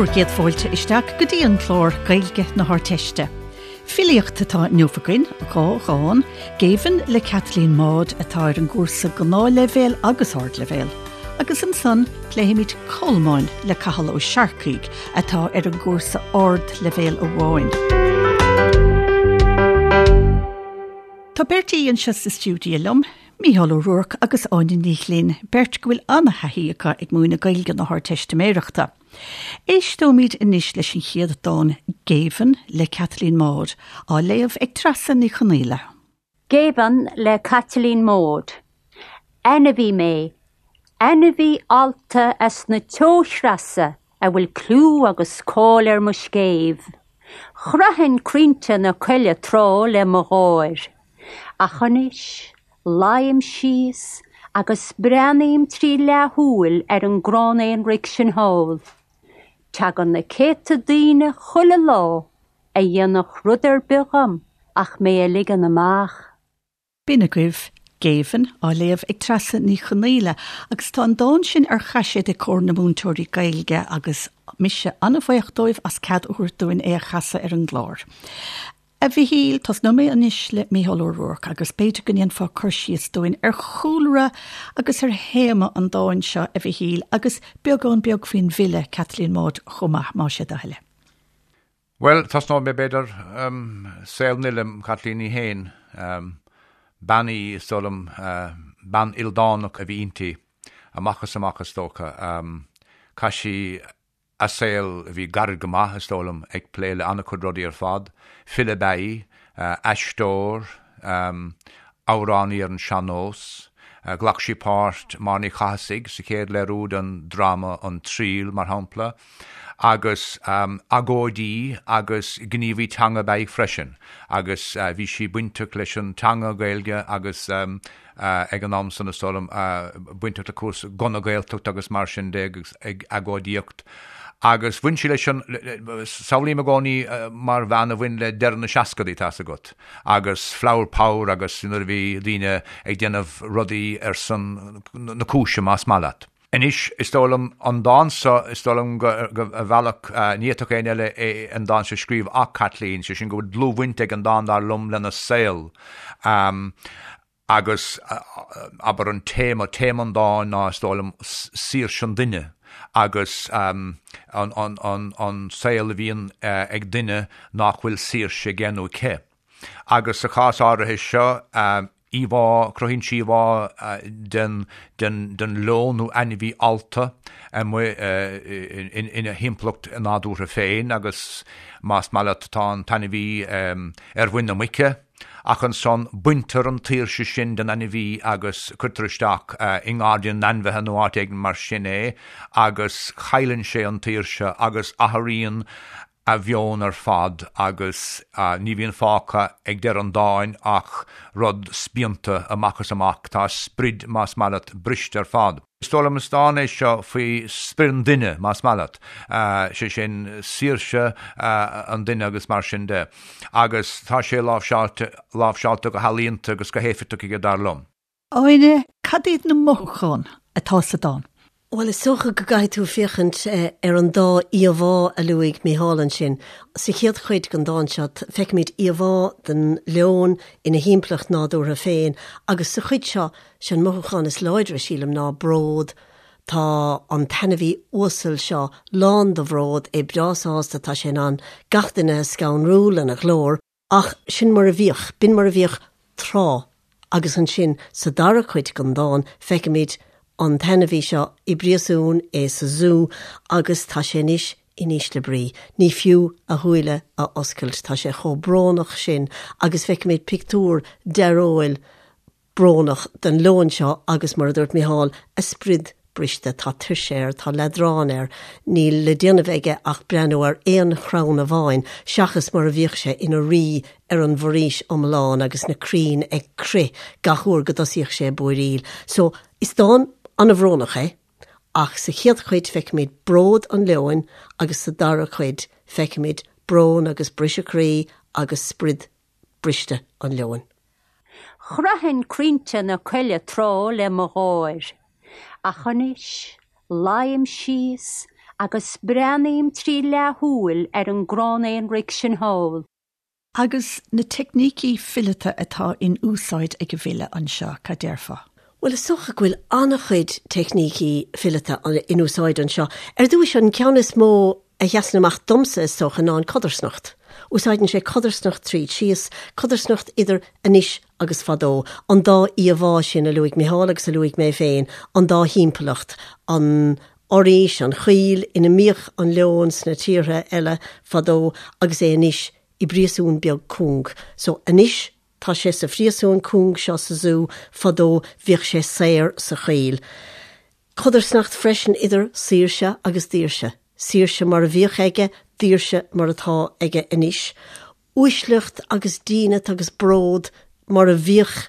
Bhur gcéad fáilte isteach go dtí an clár Gaeilge na hArdteiste. Filíocht atá inniu againn, 2 dhán, Géibheann le Caitlín Maude atá ar an gcúrsa gnáthleibhéal agus ardleibhéal, agus ansan pléifimid Colmáin le Cathal Ó Searcaigh atá ar an gcúrsa ardleibhéal amháin. Tá beirt aoi anseo sa stiúideo liom, Mícheál Ó Ruairc agus Áine Ní Ghlinn, beirt go bhfuil an-thaithí acu ag múineadh Gaeilge na hArdteistiméireachta. Éisteoimid anois leis an chéad dán, Géibheann le Caitlín Maude, á léamh ag Treasa Ní Chonaola. Géibheann le Caitlín Maude. Ainmhí mé, ainmhí allta as na teochreasa a bhfuil clú agus cáil ar mo scéimh. Chroithfinn crainnte na coille tráth le mo gháir. Ach anois, luím síos agus breathnaím trí leathshúil ar an gcrann aonraic sin thall. Tagann na céadta daoine chuile lá a dhéanfadh rud ar bith dhom ach mé a ligean amach. B'in agaibh Géibheann, á léamh ag Treasa Ní Chonaola, agus tá an dán sin ar chaiséad ag Comhar na Múinteoirí Gaeilge agus mise an-bhaoch dóibh as cead a thabhairt dúinn é a chasadh ar an gclár. A Mhichíl, tosnóidh mé anois le Mícheál Ó Ruairc agus b'fhéidir go ndéanfá cur síos dúinn ar chúlra agus ar théama an dáin seo, a Mhichíl, agus beagán beag faoin bhfile, Caitlín Maude, chomh maith, más é do thoil é. Bhuel, tosnóidh mé, b'fhéidir, saol an fhile, Caitlín í féin. Bean í, is dóigh liom, bean ildánach a bhí inti, amach is amach, is dócha. Chaith sí a saol, a bhí gairid go maith, is dóigh liom, ag plé le an-chuid rudaí ar fad. File ab ea í, aisteoir, amhránaí ar an sean-nós. Ghlac sí páirt Máire Ní Chathasaigh sa chéad léiriú den dráma An Triail, mar shampla. Agus agóidí agus gníomhaí teanga ab ea í freisin. Agus bhí sí bainteach leis an teanga Gaeilge agus ag an am san, is dóigh liom, bainteach le cúrsaí Guth na Gaeltachta agus mar sin de agus ag agóidíocht. Agus bhain sí leis an, samhlaím i gcónaí mar bhean a bhain le deireadh na seascadaí, tá's agat, agus flower power agus nuair a bhí daoine ag déanamh rudaí ar son na cúise, más maith leat. Anois, is dóigh liom, an dán seo, is dóigh liom go, ar bhealach, ní fhéadfadh éinne eile é, an dán seo a scríobh ach Caitlín, sé sin go bhfuil dlúthbhaint ag an dán, dar liom, lena saol. Agus, abair, an téama, téama an dáin ná, is dóigh liom, saoirse an duine agus an, an, an, an saol a bhíonn ag duine nach bhfuil saoirse aige nó aici. Agus sa chás áirithe seo, íomhá, cruthaíonn sí íomhá den, den, den leon nó ainmhí allta amuigh ina thimpeallacht nádúrtha féin agus más maith leat tá an t-ainmhí ar mhuin na muice ach ansan baintear an tsaoirse sin den ainmhí agus cuirtear isteach i ngairdín na n-ainmhithe nó áit éigin mar sin é agus cailleann sé an tsaoirse agus athraíonn a mheon ar fad agus ní bhíonn fágtha ag deireadh an dáin ach rud spíonta amach is amach. Tá a sprid, más maith leat, briste ar fad. Is dóigh liom is dán é seo faoi sprid an duine, más maith leat, sé sin saoirse an duine agus mar sin de. Agus tá sé láimhseáilte, láimhseáilte go healaíonta agus go héifeachtach aige, dar liom. Áine, cad iad na mothúcháin atá sa dán? Bhuel, is dócha go gcaithfidh tú féachaint ar an dá íomhá a luaigh Mícheál ansin. Sa chéad chuid den dán seo, feicimid íomhá den leon ina thimpeallacht nádúrtha féin agus sa chuid seo, sé an mothúchán is láidre, sílim, ná bród. Tá an t-ainmhí uasal seo lán de bhród, é breá sásta, tá sé in ann gach duine a scanrú lena ghlór. Ach sin mar a bhíodh, b'in mar a bhíodh tráth agus ansin sa dara cuid den dán feicimid an t-ainmhí seo i bpríosún, é sa zú agus tá sé anois in ísle brí. Ní fiú a shúile a oscailt, tá sé chomh brónach sin agus feicimid pictiúr dearóil brónach den leon seo agus, mar a dúirt Mícheál, a sprid briste, tá tuirse air, tá leadrán air, níl le déanamh aige ach breathnú ar aon chrann amháin, seachas mar a bhíodh sé ina rí ar an bhforaois iomlán agus na crainn ag crith gach uair go dtosaíodh sé ag búiríl. So, is dán an-bhrónach é, ach sa chéad chuid feicimid bród an leoin agus sa dara cuid feicimid brón agus briseadh croí agus sprid briste an leoin. Chroithfinn crainnte na coille tráth le mo gháir, ach anois luím síos Agus breathnaím trí leathshúil ar an gcrann aonraic sin thall. Agus na teicnící fileata atá in úsáid ag an bhfile anseo, cad déarfá? Bhuel, is dócha go bhfuil an-chuid teicnící fileata in úsáid anseo. Ar dtúis, an ceann is mó a sheasann amach domsa, is dócha, ná an codarsnacht. Úsáideann sé codarsnacht tríd síos, codarsnacht idir anois agus fadó, an dá íomhá sin a luaigh Micheál agus a luaigh mé féin, an dá thimpeallacht, an fhoraois, an choill ina mbíodh an leon sna tíortha eile fadó agus é anois i bpríosún beag cúng. So anois tá sé sa phríosún cúng seo sa zú, fadó bhíodh sé saor sa choill. Codarsnacht freisin idir saoirse agus daoirse. Saoirse mar a bhíodh aige, daoirse mar atá aige anois. Uaisleacht agus dínit agus bród mar a bhíodh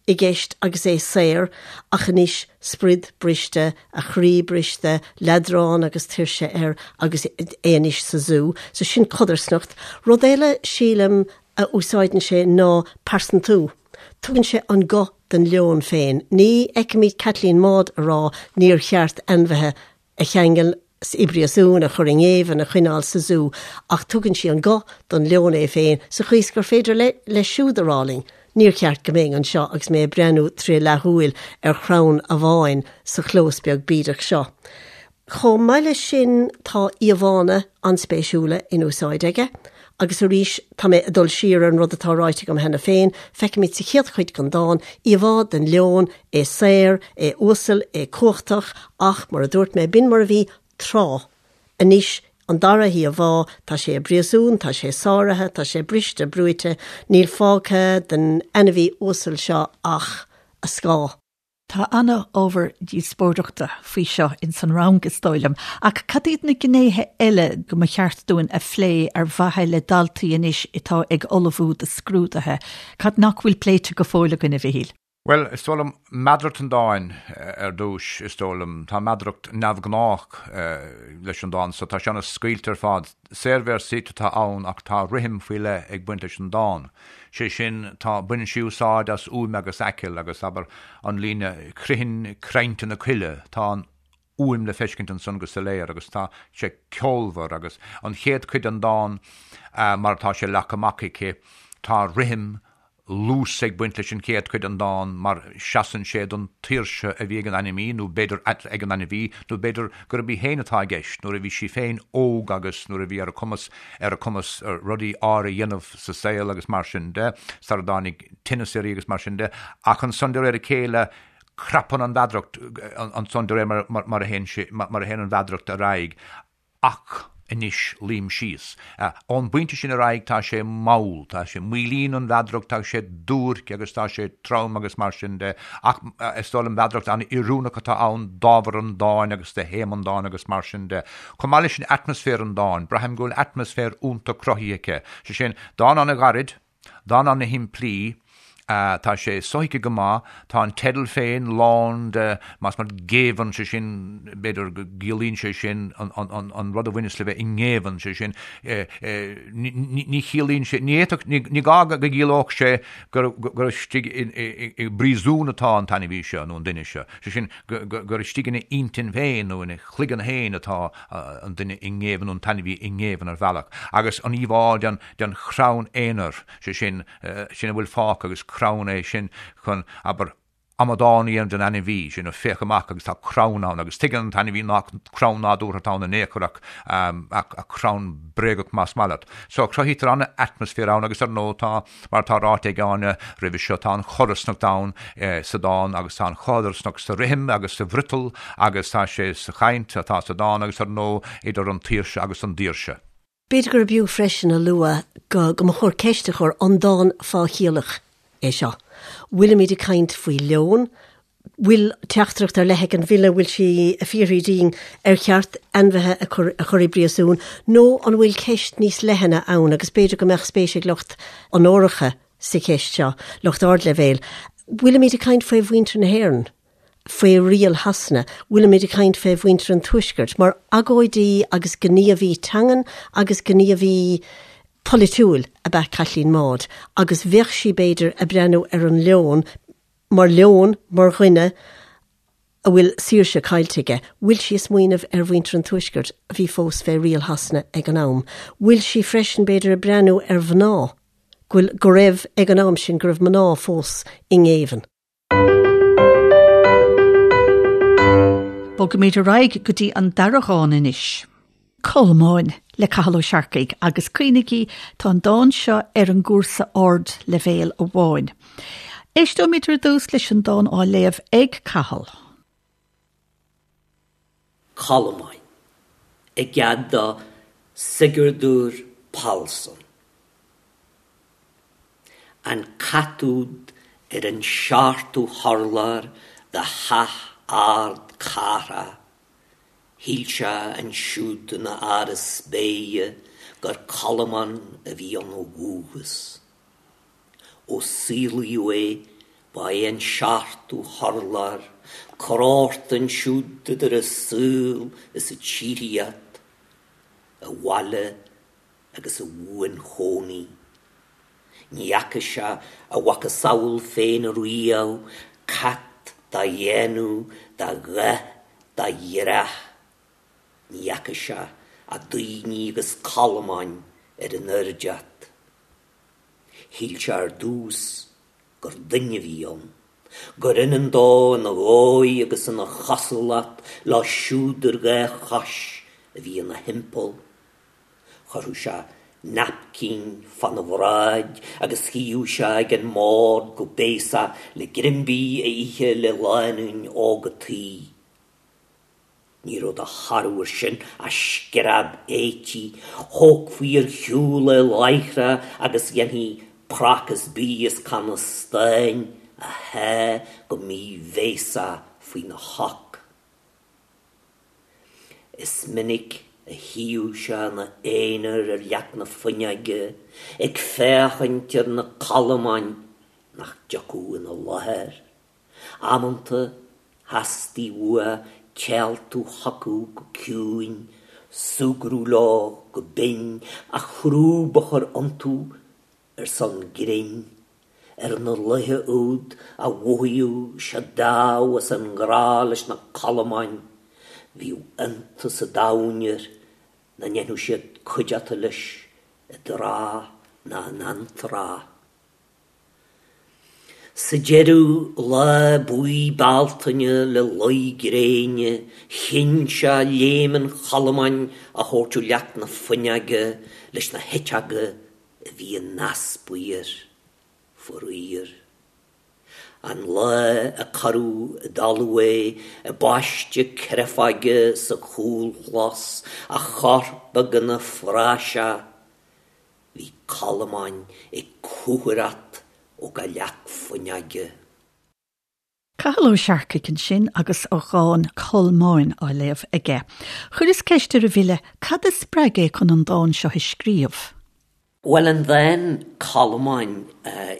i gceist agus é saor, ach anois sprid briste, a chroí briste, leadrán agus tuirse air agus é anois sa zú. So sin codarsnacht. Rud eile, sílim, a úsáideann sé ná pearsantú. Tugann sé an guth don leon féin. Ní fheicimid Caitlín Maude ag rá níor cheart ainmhithe a cheangal i bpríosún, a chur i ngéibheann, a choinneáil sa zú, ach tugann sí an guth don leon é féin sa chaoi is gur féidir leis siúd a rá linn, níor cheart go mbeinn anseo agus mé ag breathnú tré leathshúil ar chrann amháin sa chlós beag bídeach seo. Chomh maith leis sin tá íomhánna an-spéisiúla in úsáid aige. Agus arís, tá mé ag dul siar ar an rud atá ráite agam cheana féin, feicimid sa chéad chuid den dán íomhá den leon, é saor, é uasal, é cumhachtach, ach, mar a dúirt mé, b'in mar a bhí tráth. Anois, an dara híomhá, tá sé i bpríosún, tá sé sáraithe, tá sé briste, brúite, níl fágtha den ainmhí uasal seo ach a scáth. Tá ana-ábhar díospóireachta faoi seo ins an rang, is dóigh liom. Ach cad iad na gnéithe eile go mba cheart dúinn a phlé ar mhaithe le daltaí anois atá ag ullmhú do scrúduithe? Cad nach bhfuil pléite go fóill againn, a Mhichíl? Bhuel, is dóigh liom, meadaracht an dáin ar dtús, is dóigh liom. Tá meadaracht neamhghnách leis an dán so. Tá sé ana-scaoilte ar fad. Saorvéarsaíocht atá ann ach tá rithim faoi leith ag baint leis an dán. Sé sin, tá, baineann sí úsáid as uaim agus aiceall agus, abair, an líne 'Critheann crainnte na coille', tá an fhuaim le feiscint ansan go soiléir agus tá sé ceolmhar agus an chéad chuid den dán mar atá sé leagtha amach aici, tá rithim, luas ag baint leis an chéad chuid den dán mar seasann sé don tsaoirse a bhí ag an ainmhí, nó b'fhéidir ag an ainmhí, nó b'fhéidir gurb í féin atá i gceist, nuair a bhí sí féin óg agus nuair a bhí ar a cumas ar a cumas rudaí áirithe a dhéanamh sa saol agus mar sin de, sara dtáinig tinneas uirthi agus mar sin de. Ach ansan de réir a chéile crapann an mheadaracht ansan de réir mar a théann sé, mar a théann an mheadaracht ar aghaidh. Ach anois luím síos. Ón bpointe sin ar aghaidh tá sé mall, tá sé, maolaíonn an mheadaracht, tá sé duairc agus tá sé trom agus mar sin de. Ach is dóigh liom meadaracht an-oiriúnach atá ann d'ábhar an dáin agus do théama an dáin agus mar sin de. Chomh maith leis sin atmaisféar an dáin, braithim go bhfuil atmaisféar iontach cruthaithe aici. Sé sin, dán an-ghairid, Dán ana-shimplí, tá sé sothuigthe go maith, tá an teideal féin lán de, más maith leat, géibheann, sé sin, b'fhéidir go gciallaíonn sé sin an rud a bhaineas le bheith i ngéibheann, sé sin, ní chiallaíonn sé, ní fhéadfadh, ní gá go gciallódh sé gur istigh i bpríosún atá an t-ainmhí seo nó an duine seo, sé sin, gur istigh ina intinn féin nó ina chloigeann féin atá an duine i ngéibheann nó an t-ainmhí i ngéibheann ar bhealach. Agus an íomhá den. den chrann aonair, sé sin, sin a bhfuil fágtha agus crann é sin chun, abair, amadán a dhéanamh den ainmhí, sin, féach amach agus tá crann ann agus tuigeann an t-ainmhí nach crann nádúrtha atá ann in aon chor ach, ach crann bréagach más maith leat. So cruthaítear an-atmaisféar ann agus ar ndóigh tá, mar atá ráite ag Áine roimhe seo, tá an chodarsnacht ann sa dán agus tá an chodarsnacht sa rithim agus sa bhfriotal agus tá sé sa chaint atá sa dán agus ar ndóigh idir an tsaoirse agus an daoirse. B'fhéidir gurb fhiú freisin a lua go go mba chóir ceist a chur, an dán fáthchiallach é seo? Bhfuilimid ag caint faoi leon? Bhfuil teachtaireacht ar leith ag an bhfile, bhfuil sí ag fiafraí dínn ar cheart ainmhithe a chur a chur i bpríosún nó an bhfuil ceist níos leithne ann agus b'fhéidir go mbeadh spéis ag lucht onóracha sa cheist seo, lucht ardleibhéil. Bhfuilimid ag caint faoi mhuintir na hÉireann? faoi riail Shasana, bhfuilimid ag caint fé mhuintir an Tuaiscirt, mar agóidí agus gníomhaí teangan agus gníomhaí polaitiúil ab ea Caitlín Maude, agus bheadh sí, b'fhéidir, ag breathnú ar an leon mar leon, mar dhuine. A bhfuil saoirse caillte aige? Bhfuil sí ag smaoineamh ar mhuintir an Tuaiscirt a bhí fós fé riail Shasana ag an am? Bhfuil sí freisin, b'fhéidir, ag breathnú ar mhná, go bhfuil, go raibh, ag an am sin, go raibh mná fós i ngéibheann? Bogaimid ar aghaidh go dtí an dara dhán anois. Colmáin le Cathal Ó Searcaigh agus cuimhnigí tá an dán seo ar an gcúrsa ardleibhéil amháin. Éisteoimid ar dtús leis an dán á léamh ag Cathal. Colmáin, i gcead do Sigurdur Pálsson. An cat úd ar an seachtú hurlár de theach ard cathrach, Shíl sé ansiúd ina áras béithe gur colmán a bhí ann ó dhúchas. Ó saolaíodh é ba é an seachtú hurlár, corrghort ansiúd idir an saol is an tsíoraíocht, a bhaile agus a bhuanchónaí. Ní fhaca sé a mhacasamhail féin riamh, cat dá dhéanamh, dá dhath, dá dhreach. Ní fhaca sé ach daoine agus colmáin ar an oirdeat. Shíl sé ar dtús gur duine a bhí ann, gur ionann dó ina dhóigh agus ina chosúlacht leo siúd ar dhá chois a bhí ina thimpeall. Chuirfeadh sé naipcín fána bhráid agus shuíodh sé ag an mbord go béasach le greim bídh a ithe le lánúin óg an tí. Ní raibh de thoradh air sin ach scread éití, thógfaí ar shiúl é láithreach agus dhéanfaí prácás bídh as canna stáin a shá go míbhéasach faoina shoc. Is minic a shuíodh sé ina aonar ar leac na fuinneoige ag féachaint ar na colmáin nach dtiocfadh ina láthair. Amanta theastaigh uaidh téaltú chucu go ciúin, súgradh leo go binn, a chrúb a chur iontu ar son grinn, ar na laetha úd a mhothaíodh sé dámh as an ngrá leis na colmáin, bhíodh iontas an domhain air nach ndéanfadh siad cuideachta leis i dtráth ná in antráth. Sa deireadh, lá buí Bealtaine le luí gréine, chinn sé léim an cholmáin a thabhairt ó leac na fuinneoige leis na heiteoga a bhí in easpa air, faraor. An lá a cuireadh i dtalamh é i bpaiste créafóige sa chúlchlós, a chorp beag ina phraiseach, bhí colmáin ag cúthaireacht ó gach leac fuinneoige. Cathal Ó Searcaigh ansin agus a dhán 'Colmáin' á léamh aige. Chuireas ceist ar an bhfile cad a spreag é chun an dán seo a scríobh. Bhuel, an dán 'Colmáin',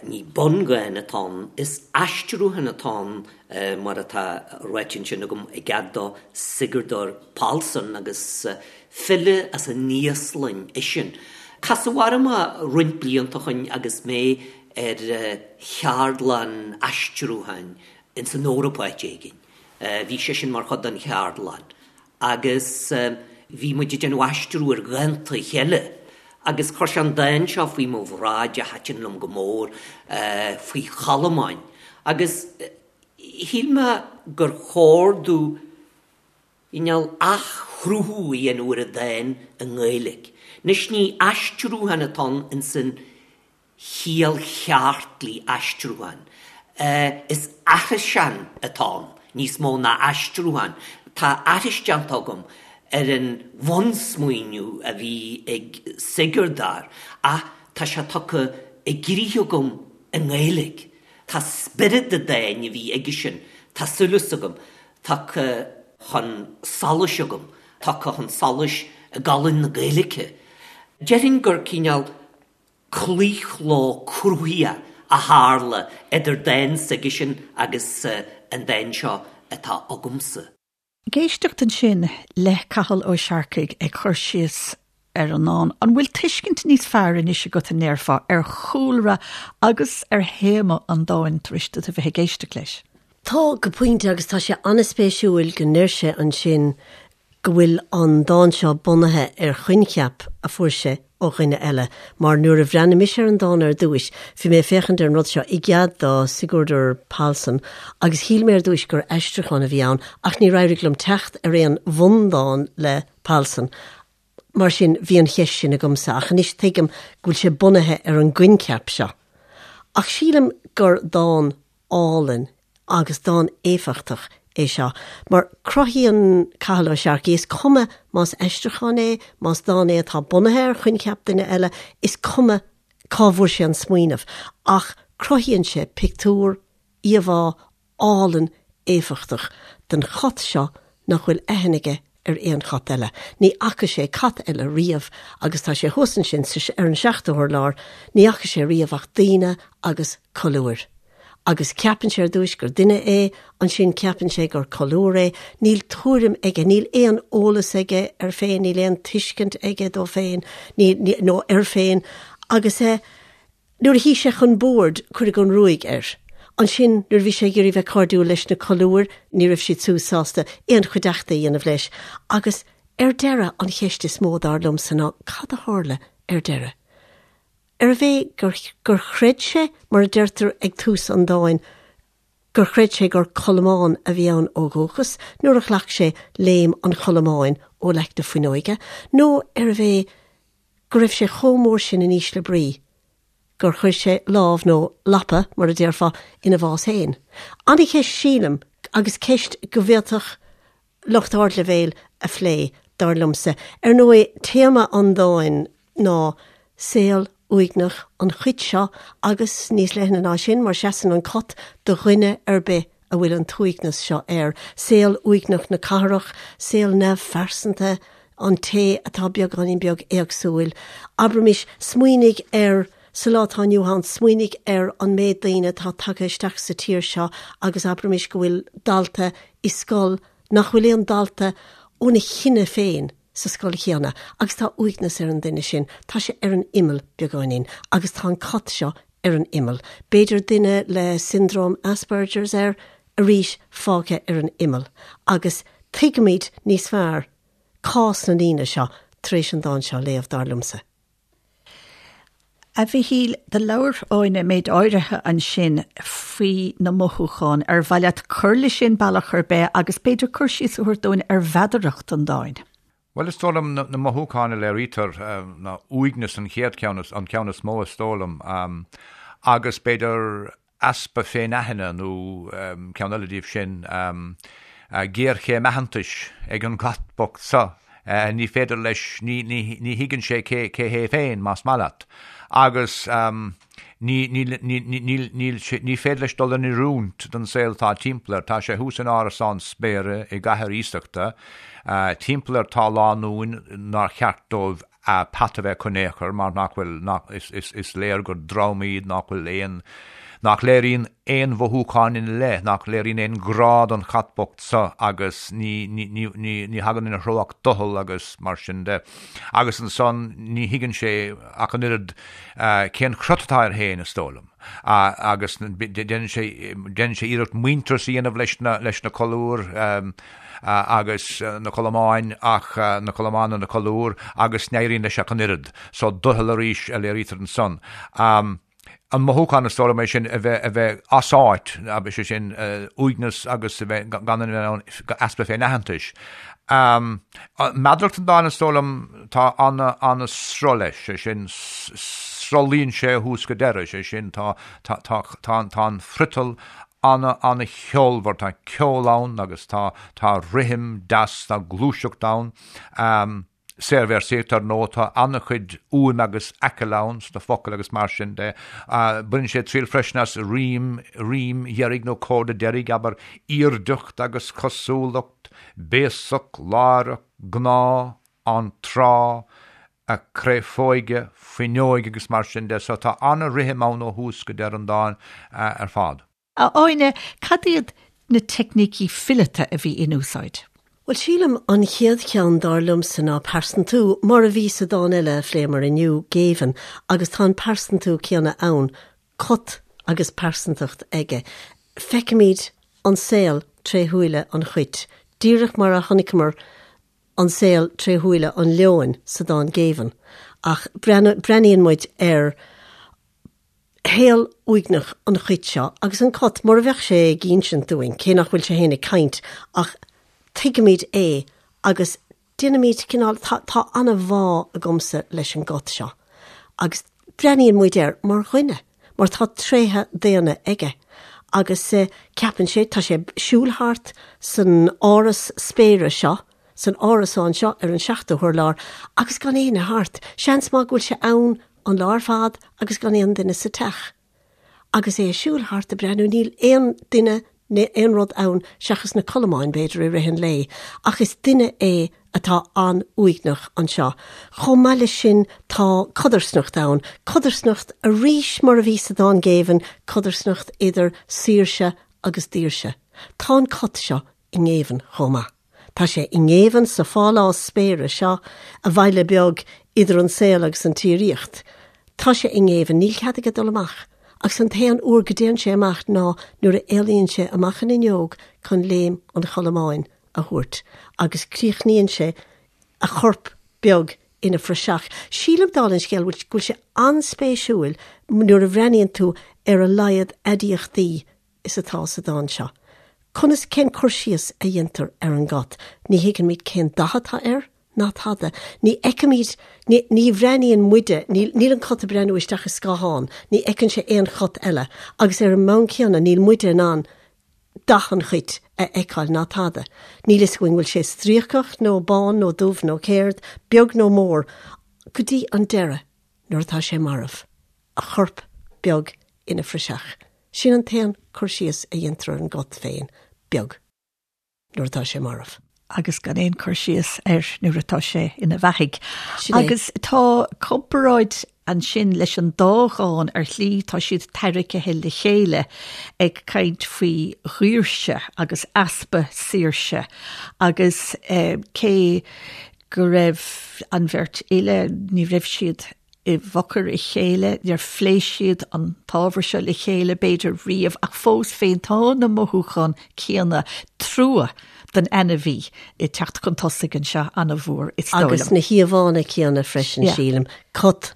ní bundhán atá ann, is aistriúchán atá ann mar atá ráite ansin agam i gcead do Sigurdur Pálsson agus file as an Íoslainn eisean. Casadh orm é roinnt blianta ó shoin agus mé ar cheardlann aistriúcháin ins an Eoraip áit éigin. Bhí seisean mar chuid den cheardlann agus bhí muid ag déanamh aistriú ar dhánta a chéile agus chuir sé an dán seo faoi mo bhráid a thaitin liom go mór, faoi cholmáin agus shíl mé gur chóir domh cineál athchruthú a dhéanamh ar an dán i nGaeilge. Anois ní aistriúchán atá ann ins an chiall cheart le aistriúchán. Is aithriseán atá ann níos mó ná aistriúchán. Tá aithris déanta agam ar an bhunsmaoineamh a bhí ag Sigurdur ach tá sé tugtha i gcrích agam i nGaeilge. Tá spiorad an dáin a bhí aigesean, tá súil agam, tugtha chun solais agam, tugtha chun solais i gcolainn na Gaeilge. Déarfainn gur cineál claochló cruthaitheach a tharla idir dán s'aigesean agus an dán seo atá agamsa. Ag éisteacht ansin le Cathal Ó Searcaigh ag cur síos ar an ndán, an bhfuil tuiscint níos fearr anois agat, an ndéarfá, ar chúlra agus ar théama an dáin tar éis duit a bheith ag éisteacht leis? Tá, go pointe, agus tá sé an-spéisiúil go ndeir sé ansin go bhfuil an dán seo bunaithe ar choincheap a fuair sé ó dhuine eile, mar nuair a bhreathnaigh mise ar an dán ar dtúis, bhí mé ag féachaint ar an rud seo i gcead do Sigurdur Pálsson agus shíl mé ar dtúis gur aistriúchán a bhí ann ach níor éirigh liom teacht ar aon bhundán le Pálsson. Mar sin, bhí an cheist sin agamsa, ach anois tuigim go bhfuil sé bunaithe ar an gcoincheap seo. Ach sílim gur dán álainn agus dán éifeachtach é seo, mar cruthaíonn Cathal Ó Searcaigh, is cuma más aistriúchán é, más dán é atá bunaithe ar choincheap duine eile, is cuma cá bhfuair sé an smaoineamh, ach cruthaíonn sé pictiúr, íomhá álainn éifeachtach den chat seo nach bhfuil aithne aige ar aon chat eile. Ní fhaca sé cat eile riamh agus tá sé thuas ansin sa, ar an seachtú hurlár, ní fhaca sé riamh ach daoine agus colúir. Agus ceapann sé ar dtúis gur duine é, ansin ceapann sé gur colúr é, níl tuairim aige, níl aon eolas aige air féin, níl aon tuiscint aige dó féin, ní, ní, nó air féin agus eh, Nuair a shuigh sé chun boird, cuireadh an ruaig air. Ansin, nuair a bhí sé ag iarraidh bheith cairdiúil leis na colúir, ní raibh siad siúd sásta aon chuideachta a dhéanamh leis. Agus, ar deireadh, an cheist is mó, dar liomsa, ná cad a tharla ar deireadh? Arbh é gur, gur chreid sé, mar a deirtear ag tús an dáin, gur chreid sé gur colmán a bhí ann ó dhúchas nuair a ghlac sé léim an cholmáin ó leac na fuinneoige, nó arbh é go raibh sé chomh mór sin in ísle brí gur chuir sé lámh, nó lapa, mar a déarfá, ina bhás féin. An-cheist sílim, agus ceist go bhféadfadh lucht ardleibhéil a phlé, dar liomsa. Ar ndóigh, téama an dáin ná saol uaigneach an chait seo agus níos leithne ná sin, mar seasann an cat do dhuine ar bith a bhfuil an t-uaigneas seo air, saol uaigneach na cathrach, saol neamhphearsanta an té atá beagáinín beag éagsúil. Abraimis, smaoinigh ar, sa lá atá inniu ann, smaoinigh ar an méid daoine atá tagtha isteach sa tír seo agus abraimis go bhfuil dalta i scoil nach bhfuil aon dalta óna chine féin sa scoil chéanna agus tá uaigneas ar an duine sin, tá sé ar an imeall beagáinín agus tá an cat seo ar an imeall. B'fhéidir duine le siondróm Asperger's air, arís fágtha ar an imeall. Agus tuigimid níos fearr cás na ndaoine seo tar éis an dán seo a léamh, dar liomsa. A Mhichíl, do labhair Áine méid áirithe ansin faoi na mothúcháin. Ar mhaith leat cur leis sin bealach ar bith agus b'fhéidir cur síos a thabhairt dúinn ar mheadaracht an dáin? Bhuel, is dóigh liom na mothúcháin a léirítear ná uaigneas an chéad cheann, an ceann is mó is dóigh liom, agus b'fhéidir easpa féinaithne nó ceann eile díobh sin, géarchéim aitheantais ag an gcat bocht seo. Ní féidir leis, ní thuigeann sé cé hé féin, más maith leat. Agus. Ní, ní, ní, ní, níl sé, ní féidir leis dul in oiriúint don saol atá timpeall air. Tá sé thuas in árasán spéire i gcathair iasachta. Timpeall air tá lánúin nár cheart dóibh peata a bheith acu in aon chor mar nach bhfuil, nach, is, is, is léir gur dream iad nach bhfuil aon, nach léiríonn aon mhothúcháin ina leith, nach léiríonn aon ghrá don chat bocht seo agus ní, ní, ní, ní, ní thagann ina threo ach doicheall agus mar sin de. Agus ansan ní thuigeann sé ach an oiread cén crot atá air féin, is dóigh liom. Agus déanann sé, déanann sé iarracht muintearas a dhéanamh leis na, leis na colúir agus na colmáin ach, na colmáin nó na colúir agus ní éiríonn leis ach an oiread. So doicheall arís a léirítear ansan. An mothúchán is dóigh liom é sin a bheith, a bheith as áit, is é sin uaigneas agus a bheith gan an easpa féinaitheantais. Meadaracht an dáin is dóigh liom tá an-sruth leis, sé sin sruthlaíonn sé ó thús go deireadh, sé sin tá, tá, tá, tá, tá an friotal an-an-cheolmhar, tá ceol ann agus tá, tá rithim deas, tá gluaiseacht ann. Saorvéarsaíocht, ar ndóigh, tá an-chuid uaim agus aicill ann sna focail agus mar sin de. Baineann sé triail freisin as rím, rím dheiridh nó comhardadh deiridh, abair, aoirdeacht agus cosúlacht, béasach, láithreach, gnáth, an tráth, a créafóige, fuinneoige agus mar sin de. So tá an-rithim ann ó thús go deireadh an dáin ar fad. A Áine, cad iad na teicnící fileata a bhí in úsáid? Bhuel, sílim, an chéad cheann, dar liomsa, ná pearsantú, mar a bhí sa dán eile a phléamar inniu, Géibheann, agus tá an pearsantú céanna ann, cat agus pearsantacht aige. Feicimid. an saol tré shúile an chait, díreach mar a chonaiceamar an saol tré shúile an leoin sa dán Géibheann, ach breathnaíonn muid ar shaol uaigneach an chait seo agus an cat, mar a bheadh sé ag insint dúinn, cé nach bhfuil sé féin ag caint, ach tuigimid é agus déanaimid cineál, tá, tá an-bhá agamsa leis an gcat seo agus breathnaíonn muid air mar dhuine, mar tá tréithe daonna aige agus ceapann sé, tá sé ag siúl thart san áras spéire seo, san árasán seo ar an seachtú hurlár agus gan éinne thart. Seans maith go bhfuil sé ann an lá ar fad agus gan aon duine sa teach. Agus é ag siúl thart ag breathnú, níl aon duine ná aon rud ann seachas na colamáin, b'fhéidir, i rith an lae, ach is duine é atá an-uaigneach anseo. Chomh maith leis sin tá codarsnacht ann, codarsnacht arís mar a bhí sa dán Géibheann, codarsnacht idir saoirse agus daoirse. Tá an cat seo i ngéibheann chomh maith. Tá sé i ngéibheann sa phálás spéire seo, a bhaile beag idir an saol agus an tsíoraíocht. Tá sé i ngéibheann, níl cead aige dul amach, agus an t-aon uair go dtéann sé amach ná nuair a éalaíonn sé amach an fhuinneog chun léim an cholamáin a thabhairt, agus críochnaíonn sé a chorp beag ina phraiseach. Sílim, dála an scéil, go bhfuil sé an-spéisiúil nuair a bhreathnaíonn tú ar a laghad aidiachtaí is atá sa dán seo. Conas, cén cur síos a dhéantar ar an gcat? Ní thuigimid cén dath atá air, ná tada. Ní fheicimid, ní, ní bhreathnaíonn muide, níl, níl an cat ag breathnú isteach i scáthán, ní fheiceann sé aon chat eile, agus ar an mbonn céanna níl muide in ann dath an chait a fheiceáil ná tada. Níl fhios againn bhfuil sé stríocach nó bán nó dubh nó céard, beag nó mór, go dtí an deireadh nuair atá sé marbh. a chorp beag ina phraiseach. Sin an t-aon cur síos a dhéantar ar an gcat féin, beag, nuair atá sé marbh. agus gan aon cur síos air nuair atá sé ina bheathaidh. Agus tá comparáid ansin leis an dá dhán ar shlí, tá siad tarraicthe le chéile ag caint faoi dhaoirse agus easpa saoirse agus eh, cé go raibh an bheirt fhile, ní raibh siad i bhfocair a chéile, níor phléigh siad an t-ábhar seo le chéile b'fhéidir riamh, ach fós féin tá na mothúcháin céanna, trua don ainmhí, ag teacht chun tosaigh anseo an-mhór, is dóigh liom. Agus na híomhánna céanna freisin, sílim. Cat,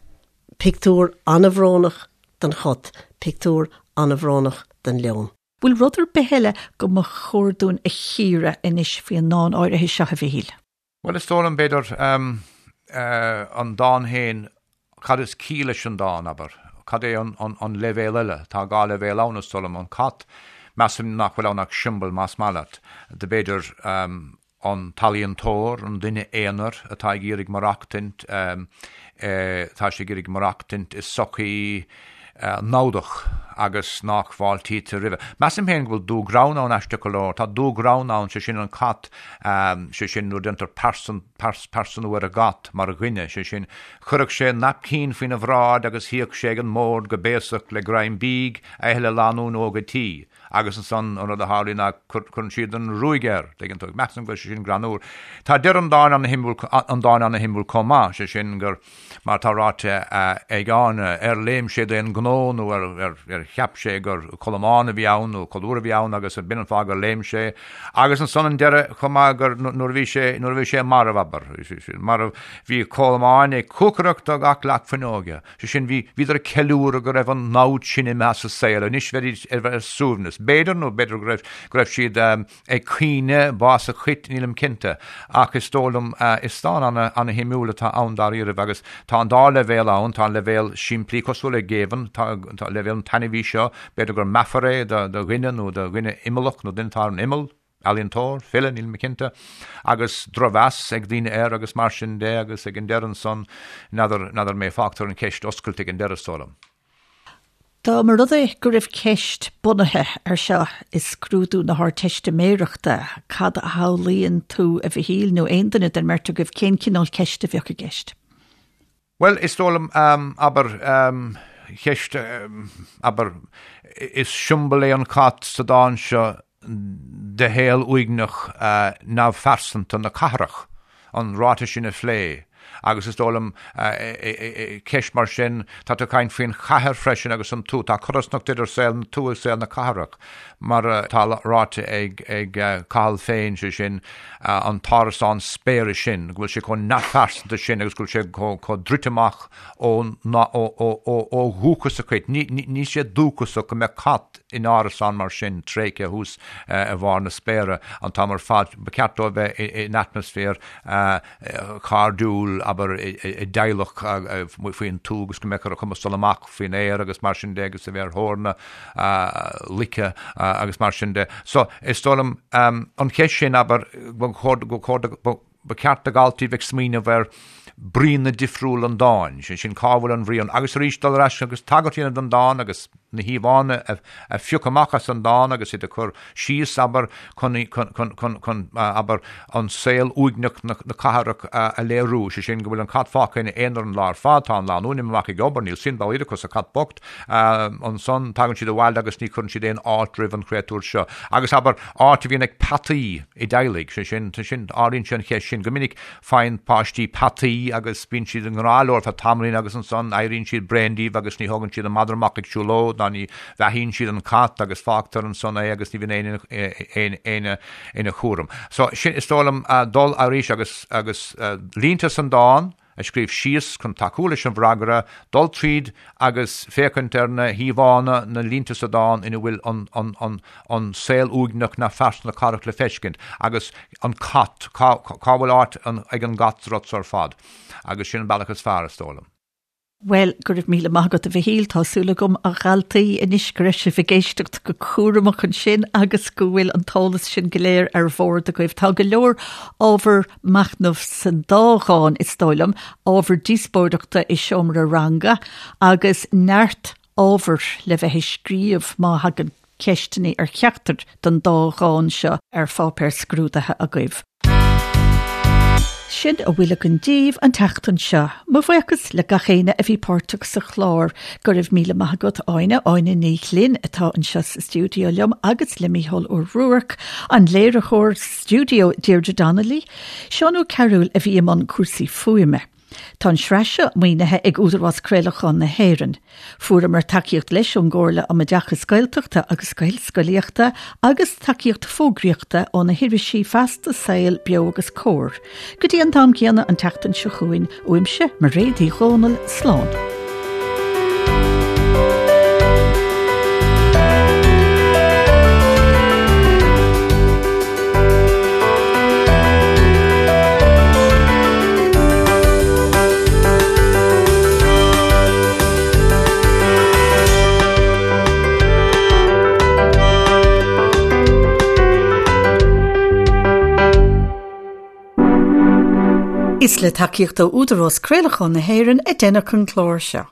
pictiúr an-bhrónach den chat, pictiúr an-bhrónach den leon. Bhfuil rud ar bith eile go mba chóir dúinn a chíoradh anois faoi an ndán áirithe seo, a Mhichíl? Bhuel, is dóigh liom, b'fhéidir, an dán féin, cad is ciall leis an dán, abair? Cad é an leibhéal eile? Tá dhá leibhéal ann, is dóigh liom. An cat, measaim nach bhfuil ann ach siombail, más maith leat, de b'fhéidir, an t-ealaíontóir, an duine aonair atá ag iarraidh maireachtaint, tá sé ag iarraidh maireachtaint i sochaí namhdach agus nach bhfáiltítear roimhe. Measaim féin go bhfuil dúghreann ann, aisteach go leor. Tá dúghreann ann, sé sin an cat, sé sin nuair a déantar pearsanú ar an gcat mar dhuine, sé sin, chuirfeadh sé naipcín faoina bhráid agus shuíodh sé ag an mbord go béasach le greim bídh a ithe le lánúin óg a' tí. Agus ansan an rud a tharlaíonn ná cuireann siad an ruaig air, tuigeann tú. Measaim go bhfuil sé sin greannmhar. Tá deireadh an dáin ana-shuimiúil, an dáin ana-shuimiúil chomh maith, sé sin gur, mar atá ráite ag Áine, ar léim sé d'aon ghnó nó ar ar cheap sé gur colamán a bhí ann nó colúr a bhí ann agus b'in an fáth gur léim sé. Agus ansan an deireadh chomh maith gur nuair a bhí sé, nuair a bhí sé marbh, abair, marbh, bhí colamáin ag cuacaireacht ó gach leac fuinneoige. Sé sin, bhí, bhíodar ag ceiliúradh go raibh an namhaid sin imithe as an saol, anois bheidís ar, ar suaimhneas. B'fhéidir, nó b'fhéidir go raibh, go raibh siad ag caoineadh bás an chait, nílim cinnte. Ach is dóigh liom, is dán ana, ana-shuimiúil atá ann dáiríribh agus tá an dá leibhéal ann, tá an leibhéal simplí cosúil le Géibheann, tá, tá leibhéal an t-ainmhí seo, b'fhéidir gur meafar é do, do dhuine nó do dhuine imeallach nó duine atá ar an imeall. ealaíontóir, file, níl mé cinnte, agus drochmheas ag daoine air agus mar sin de agus ag an deireadh ansan, n'fheadar, n'fheadar mé, fágtar an cheist oscailte ag an deireadh, is dóigh liom. Dá mba rud é go raibh ceist bunaithe ar seo i scrúdú na hArdteistiméireachta, cad a shamhlaíonn tú, a Mhichíl, nó aon duine den mbeirt agaibh, cén cineál ceiste a bheadh i gceist? Bhuel, is dóigh liom, abair, ceist, abair, is siombail é an cat sa dán seo de shaol uaigneach neamhphearsanta na cathrach, an ráiteas sin a phlé. Agus is dóigh liom, ceist mar sin, tá tú ag caint faoin chathair freisin agus an tuath, tá codarsnacht idir saol na tuaithe agus saol na cathrach, mar atá ráite ag Cathal féin, sé sin, an t-árasán spéire sin, go bhfuil sé chomh neamhphearsanta sin agus go bhfuil sé chomh druidte amach ó dhúchas a chuid. Níl sé dúchasach go mbeadh cat in árasán mar sin, tréigthe thuas i bharr na spéire an t-am ar fad. Ba cheart dó a bheith in atmaisféar cairdiúil, abair, i dteaghlach faoin tuath agus go mbeadh ar a chumas dul amach faoin aer agus mar sin de agus a bheith ar thóir na luiche agus mar sin de. So, is dóigh liom, an cheist sin, abair, go chóir Ba cheart do dhaltaí bheith ag smaoineamh ar bríonna difriúla an dáin, sé sin cá bhfuil an bhrí ann, agus arís dul ar ais agus tagairt a dhéanamh don dán agus na híomhánna a phiocadh amach as an dán agus iad a chur síos, abair, chun, chun, abair, an saol uaigneach na cathrach a léiriú, sé sin go bhfuil an cat fágtha ina aonar an lá ar fad, tá an lánúin imithe amach ag obair, níl suim dá laghad acu sa chat bocht, Ansan tagann siad abhaile agus ní chuireann siad aon fháilte roimh an chréatúr seo. Agus abair, áit a bhíonn ag peataí i dteaghlaigh, sé sin, sin, ardaíonn sé an cheist sin. Go minic faigheann páistí peataí agus bíonn siad i ngrá leo ar feadh tamaillín agus ansan éiríonn siad bréan díobh agus ní thógann siad an madra amach ag siúlóid ná ní bheathaíonn siad an cat agus fágtar ansan é agus ní bhíonn éinne éinne ina chúram. So, sin, is dóigh liom, dul arís agus, agus línte san dán, a scríobh síos chun tacú leis an bhfreagra, dul tríd agus féachaint ar na híomhánna, na línte sa dán ina bhfuil an saol uaigneach neamhphearsanta na cathrach le feiscint, agus an cat, cá bhfuil áit ag an gcat sa rud so ar fad? Agus sin an bealach is fearr, is dóigh liom. Bhuel, go raibh míle maith agat a Mhichíl, tá súil agam a dhaltaí anois go raibh sibh ag éisteacht go cúramach ansin agus go bhfuil an t-eolas sin go léir ar bhord agaibh. Tá go leor ábhar machnaimh san dá dhán, is dóigh liom, ábhar díospóireachta i seomra ranga agus neart ábhair le bheith ag scríobh má thagann ceisteanna ar cheachtar den dá dhán seo ar pháipéar scrúdaithe agaibh. Sin a bhfuil againn daoibh an tseachtain seo. Mo bhuíochas le gach éinne a bhí páirteach sa chlár. Go raibh míle maith agat Áine, Áine Ní Ghlinn atá anseo sa stiúideo liom agus le Mícheál Ó Ruairc, an léiritheoir stiúideo Deirdre Donnelly, Seán Ó Cearúil a bhí i mbun cúrsaí fuaime. Tá an tsraith seo maoinithe ag Údarás Craolacháin na hÉireann. Fuaireamar tacaíocht leis ón gComhairle um Oideachas Gaeltachta agus Gaelscolaíochta agus tacaíocht fógraíochta ó na hirisí Feasta, Saol, Beo agus Comhar. Go dtí an t-am céanna an tseachtain seo chugainn, uaimse, Mairéad Uí Dhomhnaill, slán. Is le tacaíocht ó Údarás Craolacháin na hÉireann a deineadh an clár seo.